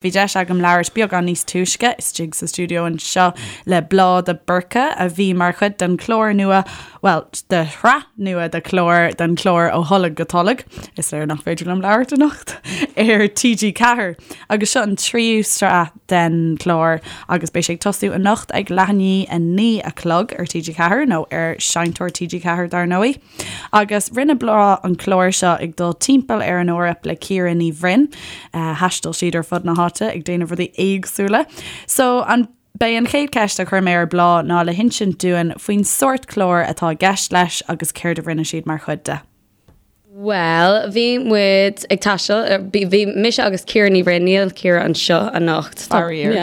Bhí deis agam labhairt beagán níos túisce istigh sa stiúideo anseo le Bláth de Búrca a bhí mar chuid den chlár nua, bhuel, de shraith nua de chlár, den chlár Ó Tholg go Tolg, is léir nach féidir liom labhairt anocht, ar TG4. Agus seo an tríú sraith den chlár agus beidh sé ag tosú anocht ag leath i ndiaidh 9 a chlog ar TG4 nó ar Seinnteoir TG4 dar ndóigh. Agus rinne Bláth an clár seo ag dul timpeall ar an Eoraip le Ciara Ní Bhroin. Thaistil siad ar fud na háite ag déanamh rudaí éagsúla. So an B'é an chéad cheist a chuir mé ar Bláth ná le hinsint dúinn faoin sórt cláir atá i gceist leis agus céard a rinne siad mar chuid de. Bhuel, bhí muid ag taisteal, bhí mise agus Ciara Ní Bhroin, níl Ciara anseo anocht. Faraor.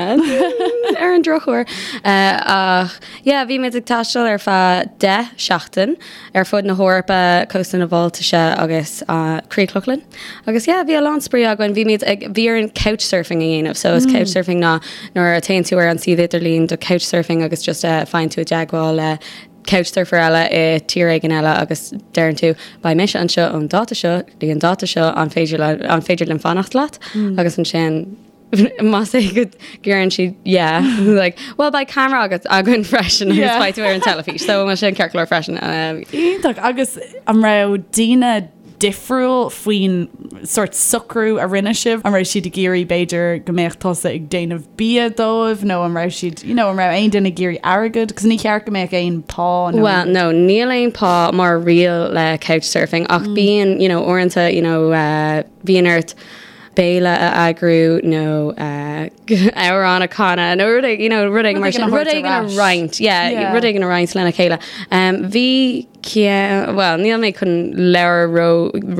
Ar an drochuair. Ach yeah, bhí muid ag taisteal ar feadh 10 seachtain ar fud na hEorpa, cósta na Baltaise agus Críoch Lochlann. Agus yeah, bhí a lán spraoi againn, bhí muid ag, bhí orainn couchsurfing a dhéanamh. So is couchsurfing ná nuair a téann tú ar an suíomh idirlín do couchsurfing agus just faigheann tú i dteagmháil le couchsurfer eile i tír éigin eile agus deireann tú beidh mise anseo ón dáta seo go dtí an dáta seo an féidir le, an féidir linn fanacht leat? Agus ansin más é go ndeireann siad yeah like well beidh camera agat againn freisin agus yeah. beidh tú ar an teilifís so bhfuil sin ceart go leor freisin. Um, Iontach agus an raibh daoine difriúil faoin sort socrú a rinne sibh? An raibh siad ag iarraidh b'fhéidir go mbeadh tusa ag déanamh bia dóibh nó an raibh siad you know, an raibh aon duine ag iarraidh airgead? Cos ní cheart go mbeadh aon pá nó Well no níl aon pá mar riail le couchsurfing ach mm. bíonn you know, uaireanta you know, uh, bíonn ort béile a eagrú nó amhrán a chanadh nó rud éigin, you know, rud éigin mar sin, rud éigin a roinnt, yeah, rud éigin a roinnt lena chéile. Um, bhí well, níl mé chun labhairt ró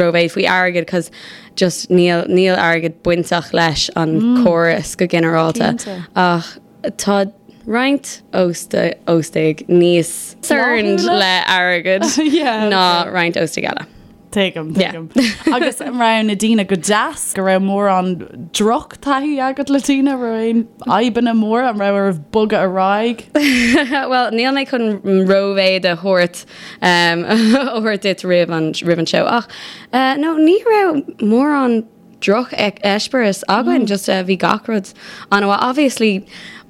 rómhéid faoi airgead cos just níl níl airgead bainteach leis an mm. córas go ginearálta ach tá roinnt óstaigh níos concerned le airgead ná roinnt óstaigh eile. Tuigim, tuigim. Agus an raibh na daoine go deas, go raibh mórán drochtaithí agat le daoine, raibh aon fhadhbanna móra, an raibh oraibh bogadh ar aghaidh? Bhuel, níl mé chun rómhéid a thabhairt a thabhairt duit roimh an roimh an seó ach no ní raibh mórán droch-eispéireas againn, just bhí gach rud an-mhaith. Obviously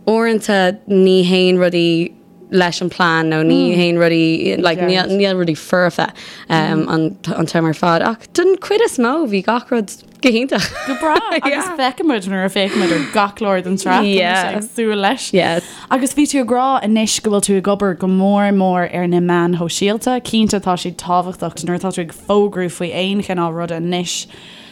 uaireanta ní théann rudaí leis an plean nó ní théann rudaí like níl níl rudaí foirfe um, an an t-am ar fad ach don chuid is mó bhí gach rud go hiontach. Go breá agus feicfimid nuair a féachaimid ar gach clár den tsraith Yeah. ag súil leis. Yeah. Agus bhí tú ag rá anois go bhfuil tú ag obair go mór mór ar na meáin shóisialta, cinnte tá siad tábhachtach nuair atá tú ag fógrú faoi aon chineál ruda anois.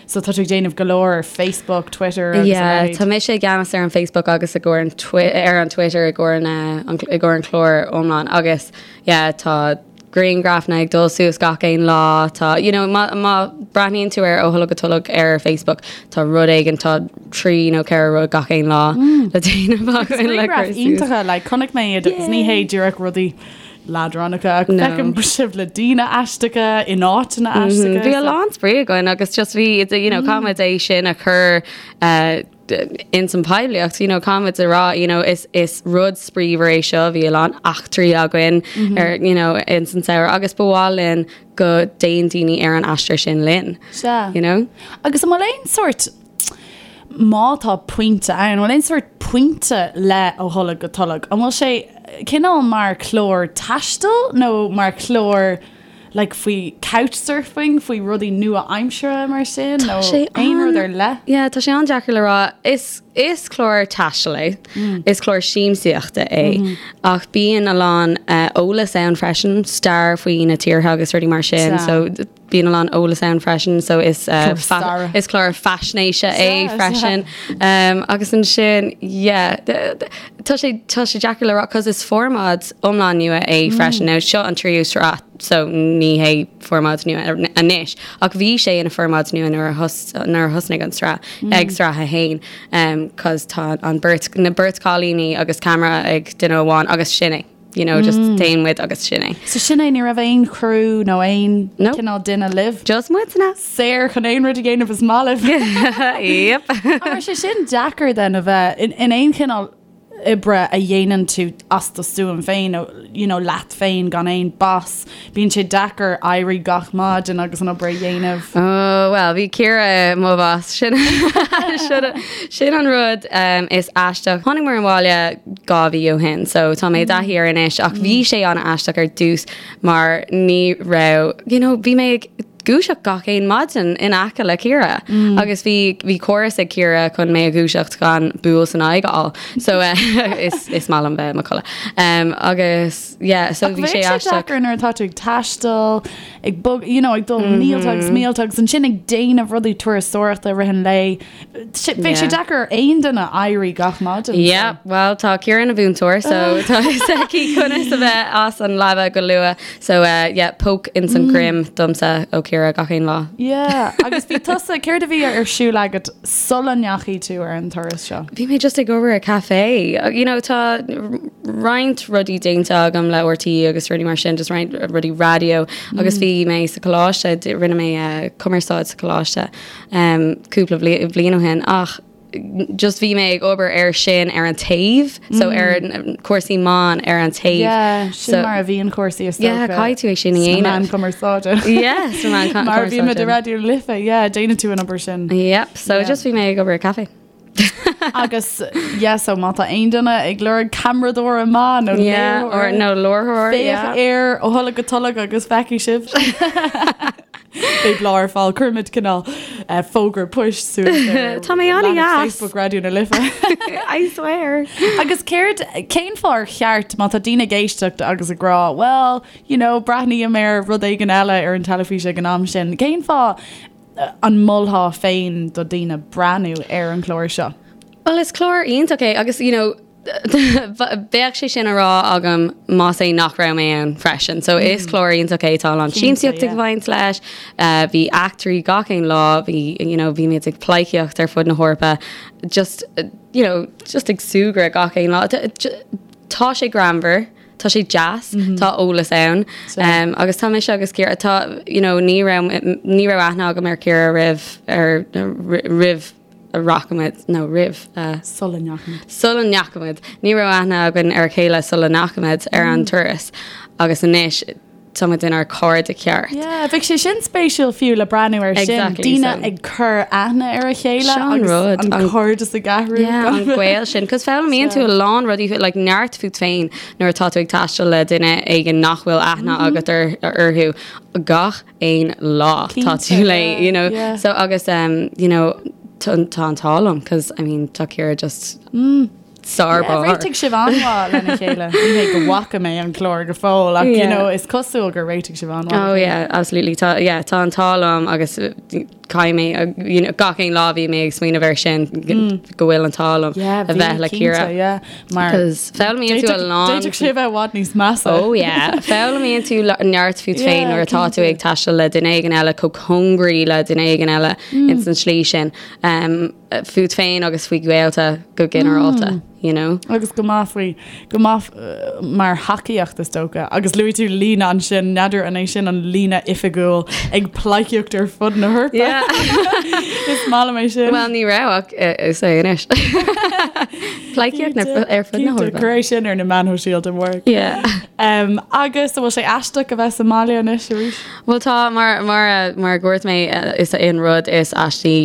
So tá tú ag déanamh go leor ar Facebook, Twitter agus a Yeah, leithéid. tá mise i gceannas ar an Facebook agus i gcomhair an twi- ar an Twitter i gcomhair na an, i gcomhair an chlár iomlán agus yeah, tá grianghrafanna ag dul suas gach aon lá tá you know, má, má breathnaíonn tú ar Ó Tholg go Tolg ar Facebook tá rud éigin tá trí nó ceithre rud gach aon lá le déanamh againn le Grianghraif cur suas. iontacha, like, chonaic mé iad agus ní hé díreach rudaí leadránacha ach No. feicim sibh le daoine aisteacha in áiteanna aisteacha. Bhí a lán spraoi againn agus just bhí you know, caithfimid é sin a chur uh, in san poiblíocht, you know, caithfimid a rá you know, is, is rud spraíúil é seo bhí a lán eachtraí againn ar you know, in san samhradh agus ba mhaith linn go dtéann daoine ar an aistear sin linn. Sea. You know? Agus an bhfuil aon sórt má tá pointe ann, an bhfuil aon sórt pointe le Ó Tholg go Tolg? An bhfuil sé cineál mar chlár taistil nó mar chlár like faoi couchsurfing, faoi rudaí nua-aimseartha mar sin nó aon rud ar leith? Yeah, tá sé an-deacair le rá. Is, is clár taistil é. Is clár siamsaíochta é. Ach bíonn a lán uh, eolas ann freisin, stair faoi na tíortha agus rudaí mar sin. Sea. So Bíonn a lán eolas ann freisin so is Clár staire. is clár faisnéise é Sea, freisin. Um, agus ansin yeah, tá sé tá sé deacair le rá cos is formáid iomlán nua é freisin. Now seo an tríú sraith so ní hé formáid nua anois ach bhí sé ina formáid nua nuair a thos nuair a thosnaigh an sraith ag sraith a haon um, cos tá an beirt na beirt cailíní agus camera ag duine amháin agus sin é. You know, just téann muid agus sin é. So sin é, ní raibh aon chriú nó aon No. cineál duine libh? Just muidne. Saor chun aon rud a dhéanamh is maith libh. Yep. An raibh sé sin deacair then a bheith in, in aon chineál oibre a dhéanann tú as do stuaim féin nó you know leat féin gan aon boss. Bíonn sé deacair éirí gach maidin agus an obair a dhéanamh. Oh well bhí Ciara mo boss sin sin an rud um, is aisteach. Tháinig muid abhaile 2 mhí ó shin so tá mé i dtaithí air anois ach bhí sé an-aisteach ar dtús mar ní raibh you know bhí mé ag dúiseacht gach aon maidin in aice le Ciara agus bhí bhí córas ag Ciara chun mé a dhúiseacht gan buail san aghaidh a fháil. So eh, is is maith liom bheith i mo chodladh. Um, agus yeah, so bhí sé aisteach. deacair nuair atá tú ag taisteal, ag bog, you know, ag dul mílte agus mílte agus ansin ag déanamh rudaí turasóireachta i rith an lae. Bheadh sé deacair ar aon duine éirí gach maidin. Yeah, well tá Ciara ina mhúinteoir so tá fhios aici conas a bheith as an leaba go luath. So uh, yeah, poke ins an droim domsa ó Ciara gach aon lá. Yeah, agus bhí tusa, céard a bhí ar siúl agat sula ndeachaigh tú ar an turas seo? Bhí mé just ag obair i café. You know, tá roinnt rudaí déanta agam le RTÉ agus rudaí mar sin, just roinnt rudaí raidió agus bhí mé sa choláiste, rinne mé uh, cumarsáid sa choláiste um, cúpla bliain ó shin ach just bhí mé ag obair ar sin ar an taobh so ar cúrsaí meán ar an taobh. Yeah, sin so, mar a bhíonn cúrsaí is Yeah, caithfidh tú é sin a dhéanamh. Meán cumarsáide. Yeah, sa meán cumarsáide. Mar a bhí muid i Raidió na Life, yeah, déanann tú an obair sin. Yep, so yeah. just bhí mé ag obair i café. Agus yeah, so má tá aon duine ag lorg ceamaradóir maith nó yeah, or nó láithreoir féach ar Ó Tholg go Tolg agus feicfidh sibh. Beidh Bláth ar fáil cuirfimid cineál fógra poist suas ar Tá mé an-deas. Facebook Raidió na Life. I swear. Agus céard cén fáth ar cheart má tá daoine ag éisteacht agus ag rá well, you know, breathnaím ar rud éigin eile ar an teilifís ag an am sin. Cén fáth an molfá féin do daoine breathnú ar an chlár seo? Well is clár iontach é agus you know, Bheadh sé sin á rá agam más é nach raibh mé ann freisin. So is clár iontach é tá a lán siamsaíocht ag baint leis, bhí eachtraí gach aon lá, bhí you know bhí muid ag pleidhcíocht ar fud na hEorpa, just you know just ag súgradh gach aon lá. Tá sé greannmhar, tá sé deas, tá eolas ann agus tá mise agus Ciara, tá you know ní raibh ní raibh aithne agam ar Ciara roimh ar roimh a rachaimid nó roimh a. Sula ndeachaimid. Sula ndeachaimid. Ní raibh aithne againn ar a chéile sula ndeachaimid ar an turas agus anois tá muid inár cairde ceart. Yeah, bheadh sé sin spéisiúil fiú le breathnú ar sin. Exactly, Daoine so. ag cur aithne ar a chéile Seo an agus rud, an an- cairdeas ag athrú. Yeah, an gaol sin, 'cause foghlaimíonn tú a lán rudaí like neart fút féin nuair atá tú ag taisteal le duine éigin nach bhfuil aithne agat ar orthu gach aon lá tá tú le you know yeah. so agus um, you know tá an t-ádh liom cause I mean tá Ciara just mm. sár yeah, réitigh sibh an-mhaith lena chéile Ní hé go bhfaca mé an clár go fóill ach yeah. you know, is cosúil gur réitigh sibh an-mhaith Oh yeah absolutely tá yeah, tá an t-ádh liom agus caithfidh mé you know, gach aon lá bhí mé ag smaoineamh air sin mm. go bhfuil an t-ádh liom yeah, a bheith le Ciara yeah. Mar foghlaimíonn tú a lán. D'fhéadfadh sé a bheith i bhfad níos measa. Oh yeah. Foghlaimíonn tú neart fút féin nuair atá tú ag taisteal le duine éigin eile chomh cóngaraí le duine éigin eile ins an slí sin. Um, fút féin agus faoi ghaolta go ginearálta, you know. Agus go maith faoi, go maith mar thacaíocht is dócha. Agus luaigh tú líne ansin, n'fheadar an é sin an líne oifigiúil ag pleidhcíocht ar fud na hEorpa. Yeah. Is maith liom é sin. Well ní raibh ach is é anois. Pleidhcíocht ar fud na hEorpa. Cuir é sin ar na meáin shóisialta amárach. Yeah. Um, agus an bhfuil sé aisteach a bheith sa mbaile anois arís? Well tá mar mar mar a dúirt mé is é an rud is aistí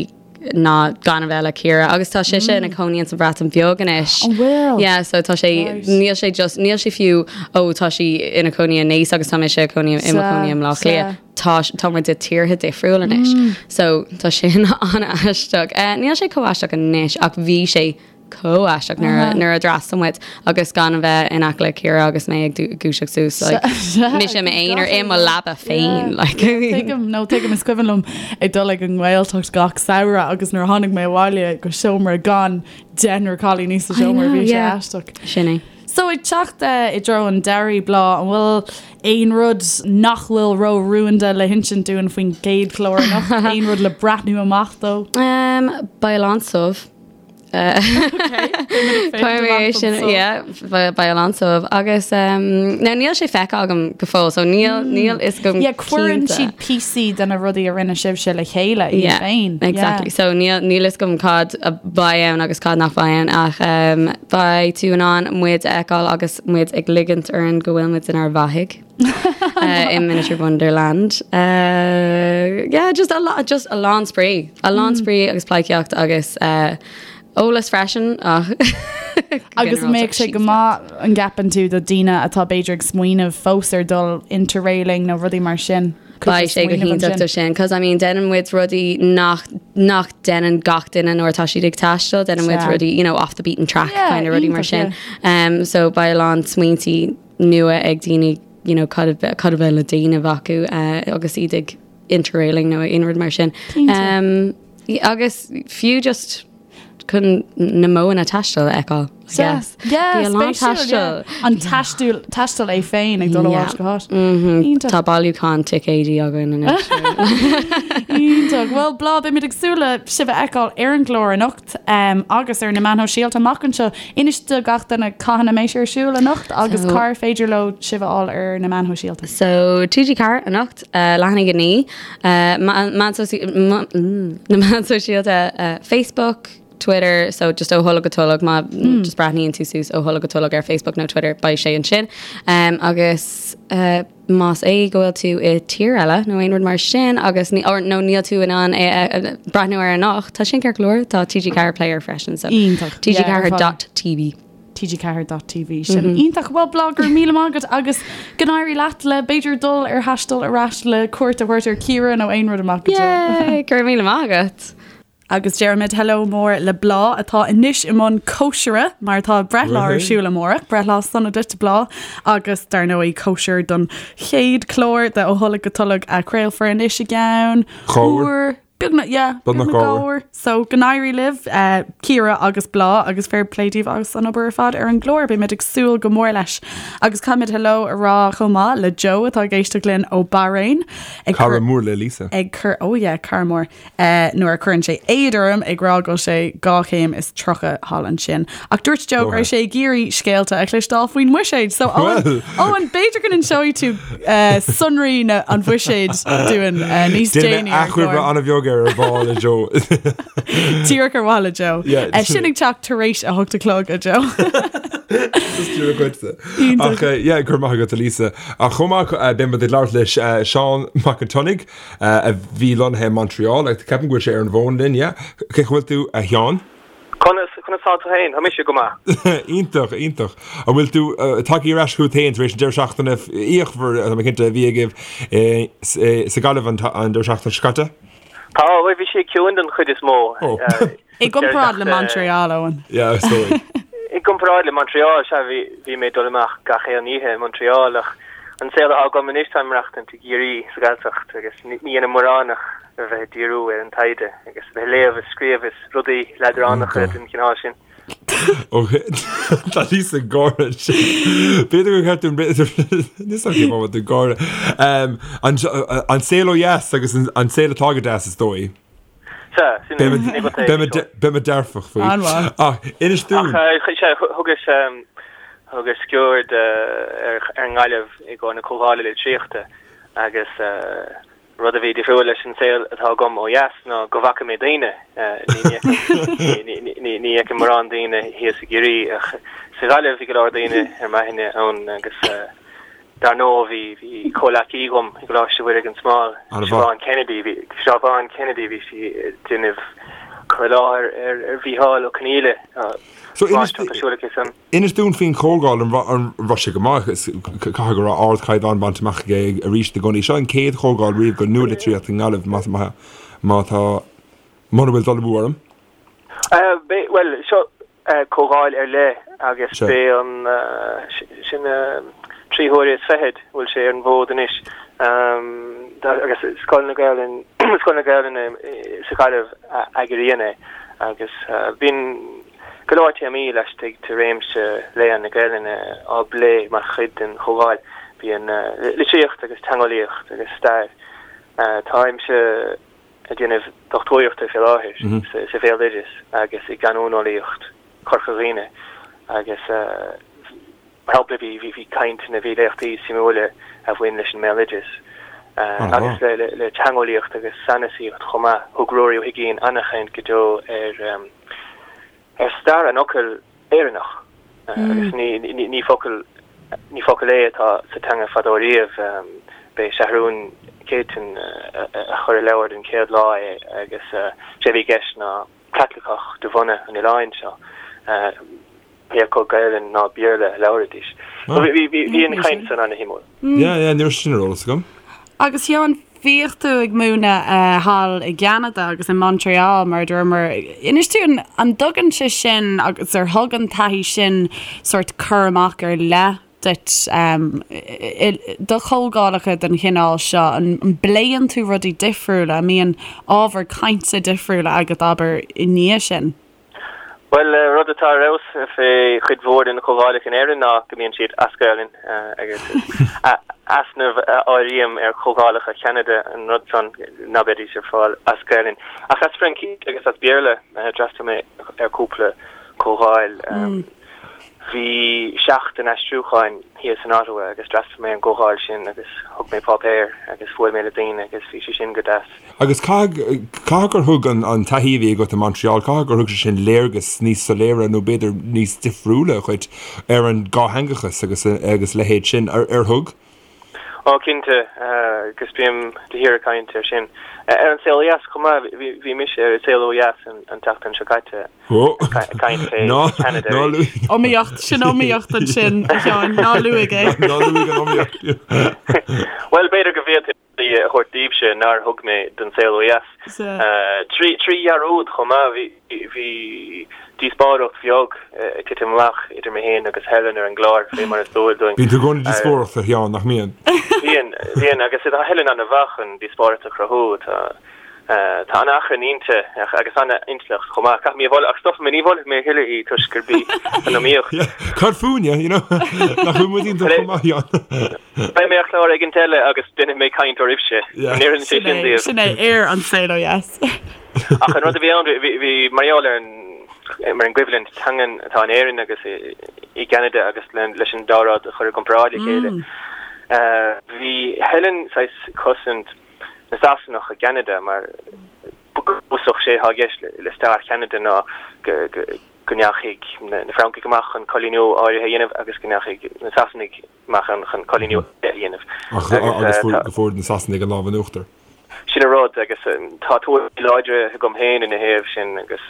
ná gan a bheith le Ciara agus tá sise ina cónaí sa Bhreatain Bheag anois. An bhfuil? Yeah, so tá sé níl sé just níl sé fiú ó tá sí ina cónaí i Naas agus tá mise i cónaí i mo cónaí i mBleá Cliath. Tá tá muid i tíortha difriúil anois. So tá sin an-aisteach. Eh, níl sé chomh aisteach anois ach bhí sé chomh aisteach nuair a nuair a d'fhreastail muid agus gan a bheith in aice le Ciara agus mé ag dúiseacht suas like mise i m'aonar i mo leaba féin like Tuigim nó tuigim is cuimhin liom ag dul ag an nGaeltacht gach samhradh agus nuair a tháinig mé abhaile go seomra gan deichniúr cailíní sa seomra bhí sé aisteach. Sin é. So ag teacht i dtreo an deiridh Bláth, an bhfuil aon rud nach bhfuil ró-rúnda le hinsint dúinn faoin gcéad chlár anocht? Aon rud le breathnú amach dó? Um, beidh a lán subh. Cuirfidh mé é sin, yeah, beidh a lán suaimh agus now níl sé feicthe agam go fóill so níl níl fhios agam Yeah, cuireann siad píosaí de na rudaí a rinne sibhse le chéile iad Yeah, féin. exactly. So níl níl fhios agam cad a bheidh ann agus cad nach bheidh ann ach um, beidh tú in ann muid a fheiceáil agus muid ag ligint orainn go bhfuil muid inár bhfathaigh. uh, in Miniature Wonderland. Uh, yeah, just a lot, just a lán spraoi. A lán mm. spraoi agus pleidhcíocht agus uh, eolas freisin ach Agus mbeadh sé go maith an gceapann tú do daoine atá b'fhéidir ag smaoineamh fós ar dul interrailing nó rudaí mar sin. Beidh sé go hiontach do sin, cos I mean déanann muid rudaí nach nach déanann gach duine nuair atá siad ag taisteal, déanann muid rudaí you know off the beaten track yeah, kind of rudaí mar sin. Um, so beidh a lán smaointí nua ag daoine you know cad a cad a bheidh le déanamh acu uh, agus iad ag interrailing nó aon rud mar sin. Um, agus fiú just chun na modhanna taistil a fheiceáil, I guess. Yeah, Bhí a lán taistil. An taisteal taisteal é féin ag dul ó áit go háit. Mhm. Iontach. Tá bailiúchán ticéidí againn anois. Iontach. Bhuel, Bláth, beimid ag súil le sibh a fheiceáil ar an gclár anocht. agus ar na meáin shóisialta amach anseo. Inis do gach duine cathain a mbeidh sé ar siúl anocht agus cár féidir leo sibh a fháil ar na meáin shóisialta. So TG4 anocht, leath i ndiaidh 9, na meáin shóisialta Facebook, Twitter, so just ó tholg go tolg má just breathnaíonn tú suas ó tholg go tolg ar Facebook nó Twitter beidh sé ansin. Agus Más é go bhfuil tú i tír eile nó aon rud mar sin agus ní, or, nó níl tú in ann é a breathnú air anocht, tá sin ceart go leor, tá TG4 Player freisin, so Iontach. TG4 dot TV. TG4 dot TV. Sin iontach. Bhuel, Bláth, go raibh míle maith agat agus go n-éirí leat le b'fhéidir dul ar thaisteal ar ais le cuairt a thabhairt ar Ciara nó aon rud amach go deo. Yay! Go raibh míle maith agat. Agus deirimid hello mór le Bláth atá anois i mbun cóisire mar tá breithlá ar siúl amárach, breithlá sona duit Bláth agus dar ndóigh cóisir don chéad chlár de Ó Tholg go Tolg a chraolfar anois i gceann uair beagnach yeah, beagnach dhá uair. So go n-éirí libh uh, Ciara agus Bláth agus fair play daoibh as an obair ar fad ar an gclár, beimid ag súil go mór leis. Agus caithfimid hello a rá chomh maith le Joe atá ag éisteacht linn ó Bahrain. Ag Cara mór le Lisa. Ag cur oh yeah, cara mór. nuair a chuireann sé éad orm ag rá go bhfuil sé 2 chéim is 30 thall ansin. Ach dúirt Joe go raibh sé ag iarraidh scéalta a chloisteáil faoin mbuiséad. So Eoin, Eoin, b'fhéidir go n-inseoidh tú sonraí na an bhuiséid dúinn níos déanaí ar an chlár. Déanfaidh mé achoimre an-bheag ar ar mhaith le Joe. Díreach ar mhaith le Joe. Sin ag teacht tar éis a hocht a chlog a Joe. Ach yeah, go raibh maith agat a Lisa. Ach chomh maith beidh muid ag labhairt le Seán Mac an tSionnaigh, a bhí lonnaithe i Montreal. Ceapaim go bhfuil sé ar an bhfón linn, yeah. Cén chaoi a bhfuil tú, a Sheáin? Conas, conas tá tú féin? Tá mise go maith. Iontach, iontach. An bhfuil tú tagtha ar ais chugat féin tar éis an deireadh seachtaine fhíochmhar, tá mé cinnte, a bhí agaibh sa Ghaillimh an deireadh seachtaine seo caite? Tá, bhuel bhí sé ciúin den chuid is mó. I gcomparáid le Montreal, Eoin. Yeah, is dóigh. I gcomparáid le Montreal, sea, bhí, bhí mé ag dul amach gach aon oíche i Montreal ach an saol atá agam anois, táim ag maireachtaint i gCiarraí, sa Ghaeltacht, agus ní dhéanaim mórán ach a bheith ag díriú ar an taighde agus a bheith ag léamh is scríobh is rudaí leadránacha den chineál sin. Ok, tá Lisa ag gáire ansin. B'fhéidir gur cheart dúinn, níl a fhios agam cén fáth a bhfuil tú ag gáire. An saol ó dheas agus an saol atá go deas is dóigh. Sea, sin é, sin é go taobh Beidh seo. Beidh mé dearfach faoi. An-mhaith. Ach inis dúinn. Ach sea, thugas, thugas sciuird ar an nGaillimh i gcomhair na Comhdhála Litríochta agus rud a bhí difriúil leis an saol atá agam ó dheas ná go bhfaca mé daoine. Ní ní fheicim mórán daoine thíos i gCiarraí ach sa Ghaillimh bhí go leor daoine ar m'aithne ann agus Dar ndóigh, bhí, bhí comhleacaí agam i gColáiste Mhuire gan Smál, Siobhán Kennedy, bhí, Siobhán Kennedy, bhí sí ag déanamh cur i láthair ar, ar Mhícheál Ó Conghaile, So inis, máistreacht ar siúl aici san. inis dúinn faoin chomhdháil, an raibh, an raibh sé go maith, is, caithfidh go raibh ardchaighdeán bainte amach aige arís i gcónaí. Seo an chéad chomhdháil riamh don nualitríocht i nGaillimh, más, má, má tá, mura bhfuil dul amú orm. Bhuel, seo, comhdháil ar leith agus b'é an sin trí huaire is fichead a bhfuil sé ar an bhfód anois agus Scoil na Gaelainne Scoil na Gaelainne sa Ghaillimh a eagraíonn é agus bíonn go leor téamaí laistigh de réimse léann na Gaelainne á bplé mar chuid den chomhdháil. Bíonn litríocht agus teangeolaíocht agus stair. Táimse. ag déanamh dochtúireachta fé láthair sa bhéaloideas agus i gcanúineolaíocht Chorca Dhuibhne agus mar shampla bhí bhí cainteanna, bhí léachtaí suimiúla a bhain leis an mbéaloideas agus le teangeolaíocht agus sanasaíocht chomh maith. Thug Ruairí Ó hUiginn an-chaint go deo ar ar stair an fhocail Éireannach agus ní focal ní focal é atá sa teanga fadó riamh. B'é Seathrún Céitinn a chuir i leabhar den chéad lá é agus sé a bhí i gceist ná Caitliceach de bhunadh an oileáin seo, pé acu Gaelainn ná Béarla a labhraídís. Bhí an chaint san ana-shuimiúil. Yeah, yeah, ní raibh sin ar eolas agam. Agus Sheáin, bhíodh tú ag múineadh thall i gCeanada agus i Montreal mar a dúramar. Inis dúinn, an dtugann sé sin agus ar thug an taithí sin sórt cur amach ar leith duit do chomhdhálacha den chineál seo? An bpléann tú rudaí difriúla? An mbíonn ábhar cainte difriúla agat, abair, i ndiaidh sin? Bhuel, rud atá ar fheabhas fé chuid mhór de na comhdhálacha in Éirinn ná go mbíonn siad as Gaelainn agus easnamh a áirím ar chomhdhálacha Cheanada an rud san ná beidís ar fáil as Gaelainn. Ach as Fraincís agus as Béarla, d'fhreastail mé ar cúpla comhdháil. Bhí seachtain aistriúcháin thíos in Ottawa agus d'fhreastail mé ar an gcomhdháil sin agus thug mé páipéar agus bhuail mé le daoine agus bhí sé sin go deas. Agus caithfidh, caithfidh gur thug an, an taithí a bhí agat i Montreal, caithfidh gur thug sé sin léargas níos soiléire nó b'fhéidir níos difriúla dhuit ar an dhátheangachas agus, agus a leithéid sin. Ar, ar thug? Ó, cinnte, agus bím de shíor ag caint air sin. Ar An Saol Ó Dheas chomh maith, bhí mise ar An Saol Ó Dheas an tseachtain seo caite ag caint fé Cheanada arís. Iomaíocht, sin iomaíocht ansin, a Sheáin, ná luaigh é. Ná luaigh an iomaíocht. Bhuel, b'fhéidir go bhféadfainn. a thabhairt daoibhse nár thug mé don Saol Ó Dheas. Trí dhearúd chomh maith, bhí díospóireacht bheag ag titim amach idir mé féin agus Helen ar an gclár, fé mar is dual dúinn. Bíonn tú i gcónaí ag díospóireacht, a Sheáin, nach mbíonn? Bíonn, bíonn, agus tá Helen an-mhaith chun díospóireacht a chruthú. Tá an-achrann inti agus an-intleacht chomh maith. Caithfidh mé a mholadh, ach stopfaidh mé, ní mholfaidh mé a thuilleadh í toisc gurb í an iomaíocht. Cad fúinne, you know? Nach bhfuil muid iontach chomh maith, a Sheáin? Beidh mé ar chlár éigint eile agus déanfaidh mé caint oraibhse. An oireann sé sin daoibh? Sin é, ar An Saol Ó Dheas. Ach an rud a bhí ann, bhí mar gheall ar an mar an gcoimhlint teangan atá in Éirinn agus i gCeanada agus leis an dá rud a chur i gcomparáid le chéile. Bhí Helen saghas ag cosaint na Sasanach i gCeanada mar go bunúsach sé atá i gceist le stair Cheanada ná go go ndeachaigh na Francaigh amach chun coilíniú áirithe a dhéanamh agus go ndeachaigh na Sasanaigh amach chun coilíniú a dhéanamh. Agus go bhfuair na Sasanaigh an lámh in uachtar. Sin an rud agus tá tuairimí láidre agam féin ina thaobh sin agus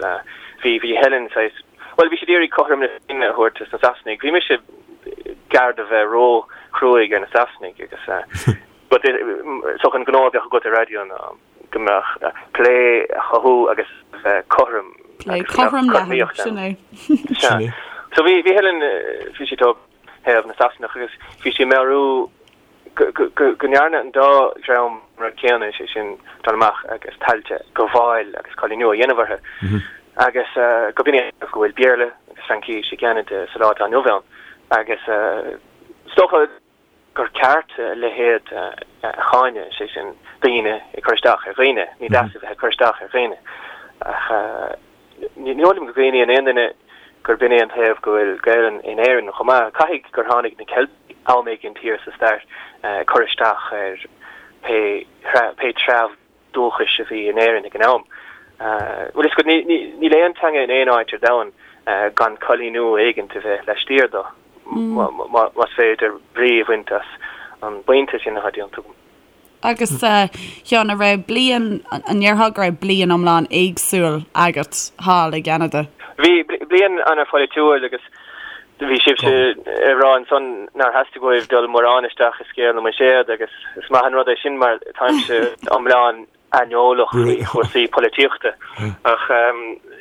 bhí bhí Helen saghas, bhuel bhí siad iarraidh cothrom na Féinne a thabhairt dos na Sasanaigh. Bhí mise gar do bheith ró-chruaidh ar na Sasanaigh agus but is dócha an gnó a bheadh agat ar raidió ná go mbeadh plé a chothú agus bheith cothrom. Plé cothrom leathan, sin é. Sin é. So bhí bhí Helen bhí sí tog thaobh na Sasanach agus bhí sí ag meabhrú go ndearna an dá dhream an rud céanna, sé sin dul amach agus tailte a ghabháil agus coilíniú a dhéanamh orthu agus go b'in é go bhfuil Béarla agus Fraincis i gCeanada sa lá atá inniu ann agus is dócha gur ceart a leithéid a cháineadh, sé sin daoine ag cur isteach ar dhaoine, ní deas a bheith ag cur isteach ar dhaoine ach Ní dóigh liom go gcuimhníonn aon duine gurb in é an taobh go bhfuil Gaelainn in Éirinn chomh maith. Caithfidh gur tháinig na Ceiltigh am éigin thiar sa stair ag cur isteach ar pé pé treabh dúchais a bhí in Éirinn ag an am. Bhuel, is go níl aon teanga in aon áit ar domhan gan coilíniú éigint a bheith laistiar dó, más féidir brí a bhaint as an bpointe sin atá déanta agam. Agus a Sheáin, an raibh bliain, an ndéarfá go raibh bliain iomlán éagsúil agat thall i gCeanada? Bhí, bliain an-pholaitiúil agus bhí sibhse ag rá ansan nár theastaigh uaibh dul mórán isteach i scéal na mbuiséad agus is maith an rud é sin mar táimse iomlán aineolach faoi chúrsaí polaitíochta ach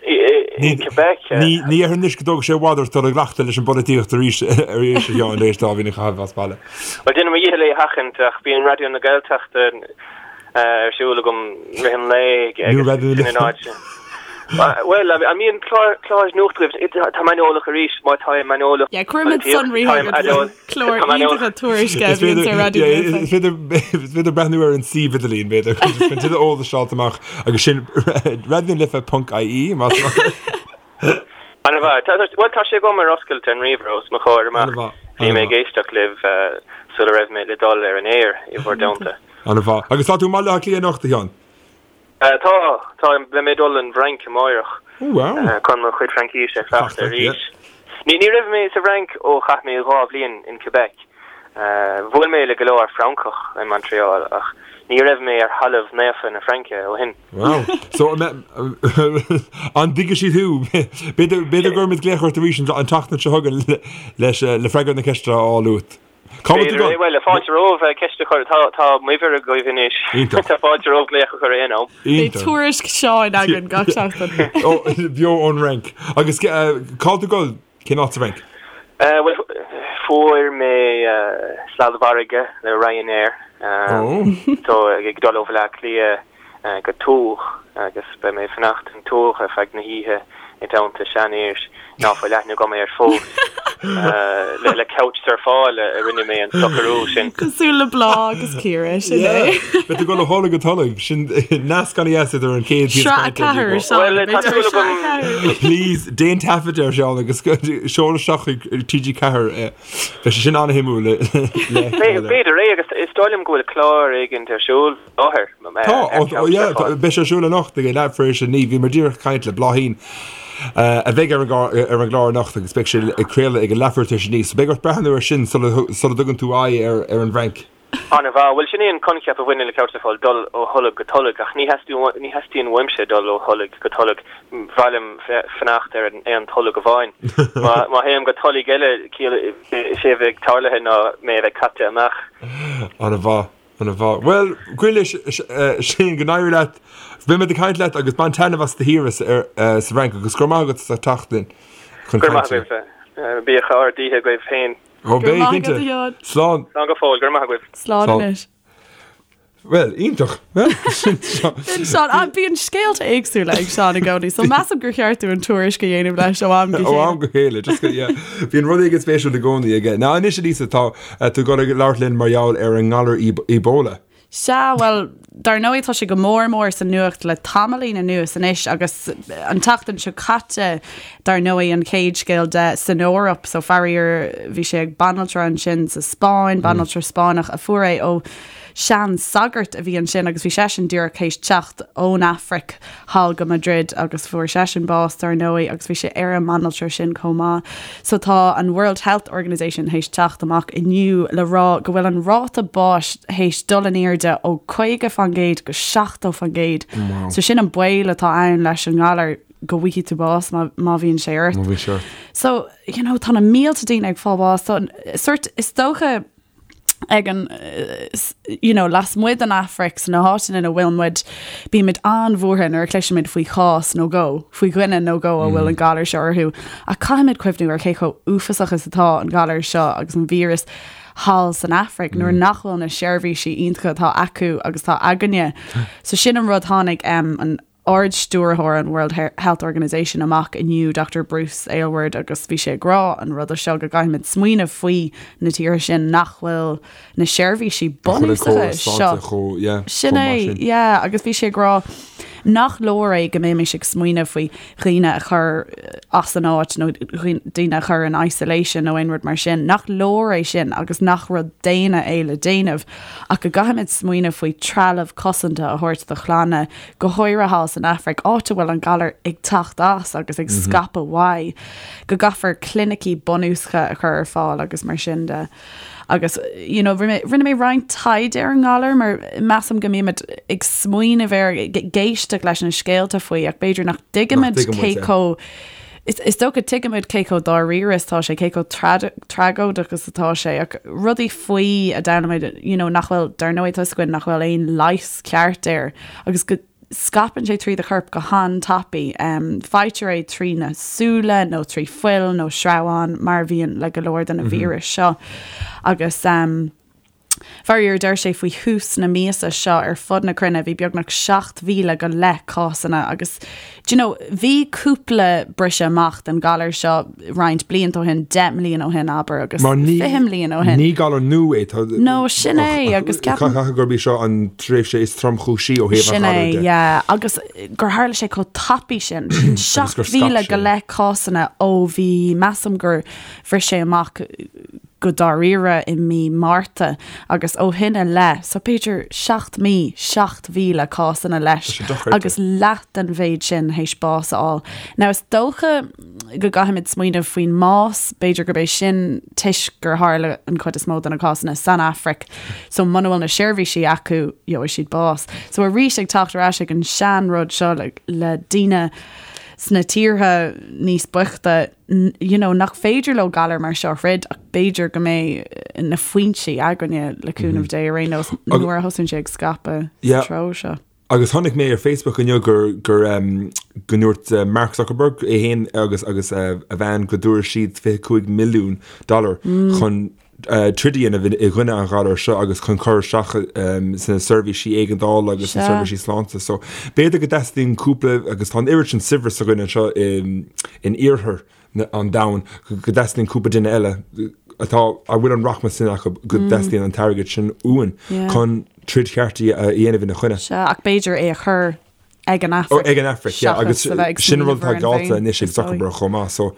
i Quebec. Ní déarfainn anois go dtógfaidh sé i bhfad ort dul i gcleachtadh leis an bpolaitíocht arís arís a Sheáin tar éis dá bhliain a chaitheamh as baile. Bhuel, déanaim mo dhícheall é a sheachaint ach bíonn Raidió na Gaeltachta ar siúl agam rith an lae agus sin an áit. Bhuel, an mbíonn clár nuachta agaibh? Tá mé aineolach arís, má tá mé aineolach. Yeah, cuirimid sonraí chugat. Clár iontacha tuairisce a bhíonn ar Raidió na Life. Is féidir breathnú ar an suíomh idirlín, b'fhéidir, chun tuilleadh eolais a fháilt amach agus sin raidionalife.ie más maith. An-mhaith. Bhuel, tá sé agam ar oscailt ar an ríomhaire os mo chomhair amach. Bhí mé ag éisteacht libh sula raibh mé le dul ar an aer i bhur dteannta. An-mhaith. Agus tá tú i mBaile Átha Cliath anocht, a Sheáin? Tá, tá, beidh mé ag dul an bhFrainc amáireach chun mo chuid Fraincíse a chleachtadh arís. Ní raibh mé sa bhFrainc ó chaith mé 2 bhliain in Quebec. Bhuail mé le go leor Francach i Montreal ach ní raibh mé ar thalamh naofa na Fraince ó shin. Wow. So, an dtuigfidh siad thú? B'fhéidir go gcuirfimid glaoch ort arís an tseachtain seo chugainn leis le freagra na ceiste a fháil uait. Cá bhfuil tú ag dul? Bhuel, fáilte romhaibh ceist a chur. Tá m'uimhir agaibh anois. Iontach. Tá fáilte romhaibh glaoch a chur aon am. Beidh tuairisc Sheáin againn gach seachtain. Beo ón Fhrainc. Agus cá bhfuil tú ag dul? Cén áit sa Fhrainc? Bhuel, fuair mé sladmhargadh le Ryanair. So, ag dul ó Bhaile Átha Cliath go Tours agus beidh mé ag fanacht in Tours ar feadh na hoíche i dteannta seanfhir ná fuil aithne agam air fós. Le Couchsurfáil a rinne mé an socrú sin. Cosúil le Bláth agus Ciara, sin é. Beidh tú ag dul ó tholg go tolg, sin nasc ana dheas idir an chéad Sraith 4, Seán, beidh tú ar Sraith 4. Please, déan taifead air, Seán, agus seol isteach chuig TG4 é. Beidh sé sin an-shuimiúil le feiceáil. B'fhéidir é agus is dóigh liom go bhfuil clár éigint ar siúl. láthair. Tá, yeah, beidh sé ar siúl anocht ag leath tar éis 9. Bhíomar díreach ag caint le Bláithín a bheidh ar an gclár anocht agus beidh sé ag craoladh ag a leathuair tar éis 9. So beidh ort breathnú air sin sula dtugann tú aghaidh ar an bhFrainc. An-mhaith. Bhuel, sin é an coincheap a bhaineann le Couchsurfáil, dul ó tholg go tolg, ach ní theastaíonn uaimse dul ó tholg go tolg. B'fhearr liom fanacht ar aon tolg amháin. Má théim go tolg eile, is é a bheidh tarlaithe ná mé a bheith caite amach. An-mhaith. An-mhaith. Bhuel, guímis sin go n-éirí leat. Beimid ag caint leat agus bain taitneamh as do shaoire sa bhFrainc agus go raibh maith agat as ucht teacht linn chun Go raibh maith agaibh. Bíodh ard-oíche agaibh féin. Ó, beidh, cinnte. Slán. Slán go fóill. Go raibh maith agaibh. Slán anois. Bhuel, iontach. Sin Seán. Ah, bíonn scéalta éagsúla ag Seán i gcónaí, so measaim gur cheart dúinn tuairisc a dhéanamh leis ó am go chéile. Ó am go chéile, just go, yeah. Bíonn rud éigin spéisiúil i gcónaí aige. Now anois, a Lisa, tá tú ag dul ag labhairt linn mar gheall ar an ngalar Ebola. Sea, bhuel, dar ndóigh tá sé go mór mór sa nuacht le tamaillín anuas anois agus an tseachtain seo caite, dar ndóigh, an chéad scéal de san Eoraip. So faraor bhí sé ag banaltra ansin sa Spáinn, banaltra Spáinneach a fuair é ó sean sagart a bhí ansin agus bhí seisean díreach théis teacht ón Afraic thall go Madrid agus fuair seisean bás dar ndóigh agus bhí sé ar an mbanaltra sin chomh maith. So tá an World Health Organization théis teacht amach inniu le rá go bhfuil an ráta báis théis dul in airde ó 50% go 70%. So sin an baol atá ann leis an ngalar go bhfaighidh tú bás má má bhíonn sé ort. Má bhíonn sé ort. So, you know, tá na mílte daoine ag fáil bás. So, sort, is dócha ag an you know, lasmuigh den Afraic sna háiteanna ina bhfuil muid, bímid an-bhuartha nuair a chloisimid faoi chás nó dhó, faoi dhuine nó dhó a bhfuil an galar seo orthu. Ach caithfimid cuimhniú ar cé chomh uafásach is atá an galar seo agus an víreas thall san Afraic nuair nach bhfuil na seirbhísí iontacha atá acu agus atá againne. So sin an rud tháinig um, an Ard-Stiúrthóir an World Health Organization amach inniu, Dr Bruce Aylward, agus bhí sé ag rá an ruda seo go gcaithfimid smaoineamh faoi na tíortha sin nach bhfuil na seirbhísí bunúsacha seo. Sin é, yeah, agus bhí sé ag rá nach leor é go mbeimis ag smaoineamh faoi dhaoine a chur as an áit nó daoine a chur in isolation nó aon rud mar sin, nach leor é sin agus nach rud daonna é le déanamh ach go gcaithfimid smaoineamh faoi trealamh cosanta a thabhairt do chlanna go háirithe thall san Afraic, áit a bhfuil an galar ag teacht as agus ag scaipeadh uaidh, go gcaithfear clinicí bunúsacha a chur ar fáil agus mar sin de. Agus, you know, rinne mé roinnt taighde ar an ngalar mar measaim go mbímid ag smaoineamh air, ag éisteacht leis na scéalta faoi ach b'fhéidir nach dtuigimid cé chomh Is dócha tuigimid cé chomh dáiríre is atá sé, cé chomh tragóideach is atá sé, ach rudaí faoi a d'fhoghlaim muid, you know, nach bhfuil, dar ndóigh tá 'fhios againn nach bhfuil aon leigheas ceart air agus go scaipeann sé trí do chorp go han-tapaidh. Faightear é trí na súile nó trí fuil nó sreabháin mar a bhíonn le go leor de na víris seo agus. Faraor, deir sé faoi thús na míosa seo ar fud na cruinne bhí beagnach 7,000 go leith cásanna agus do you know bhí cúpla briseadh amach den galar seo roinnt blianta ó shin, 10 mbliana ó shin abair agus 20 mbliana ó shin. Ní galar nua é tá No sin é agus ceapaim Caithfidh gurb í seo an tréimhse is tromchúisí ó thaobh an ghalair de. Sin é, yeah agus gur tharla sé chomh tapaidh sin, sin 7,000 go leith cásanna ó bhí measaim gur bhris sé amach go dáiríre i mí Márta agus ó shin i leith, so b'fhéidir 7 mí, 7,000 cásanna leis agus leath den mhéid sin théis bás a fháil. Now is dócha go gcaithfimid smaoineamh faoin mbás, b'fhéidir gurb é sin toisc gur tharla an chuid is mó de na cásanna san Afraic, so muna bhfuil na seirbhísí acu, gheobhaidh siad bás. So arís ag teacht ar ais ag an sean rud seo le, le daoine sna tíortha níos boichte, you know, nach féidir leo galar mar seo a throid ach b'fhéidir go mbeidh na foinsí againne le cúnamh Dé ar aon nós nuair a thosaíonn sé ag scaipeadh sa treo seo. Agus chonaic mé ar Facebook inniu gur gur um, go ndúirt uh, Mark Zuckerberg é féin agus agus uh, a bhean go dtabharfaidh siad 25 milliún dollar mm. chun troid a dhéanamh i gcoinne an ghalair seo agus chun cur isteach sna seirbhísí éigeandála agus sna seirbhísí sláinte. So b'fhéidir go dteastaíonn cúpla, agus tá an oiread sin saibhreas againn anseo in iarthar an domhain, go dteastaíonn cúpla duine eile atá, a bhfuil an rachmas sin acu, go dteastaíonn an t-airgead sin uainn chun troid cheart a dhéanamh ina choinne. Sea, ach b'fhéidir é a chur ag an Afraic. Ag an Afraic, yeah, agus sin rud atá geallta anois ag Zuckerberg chomh maith, so.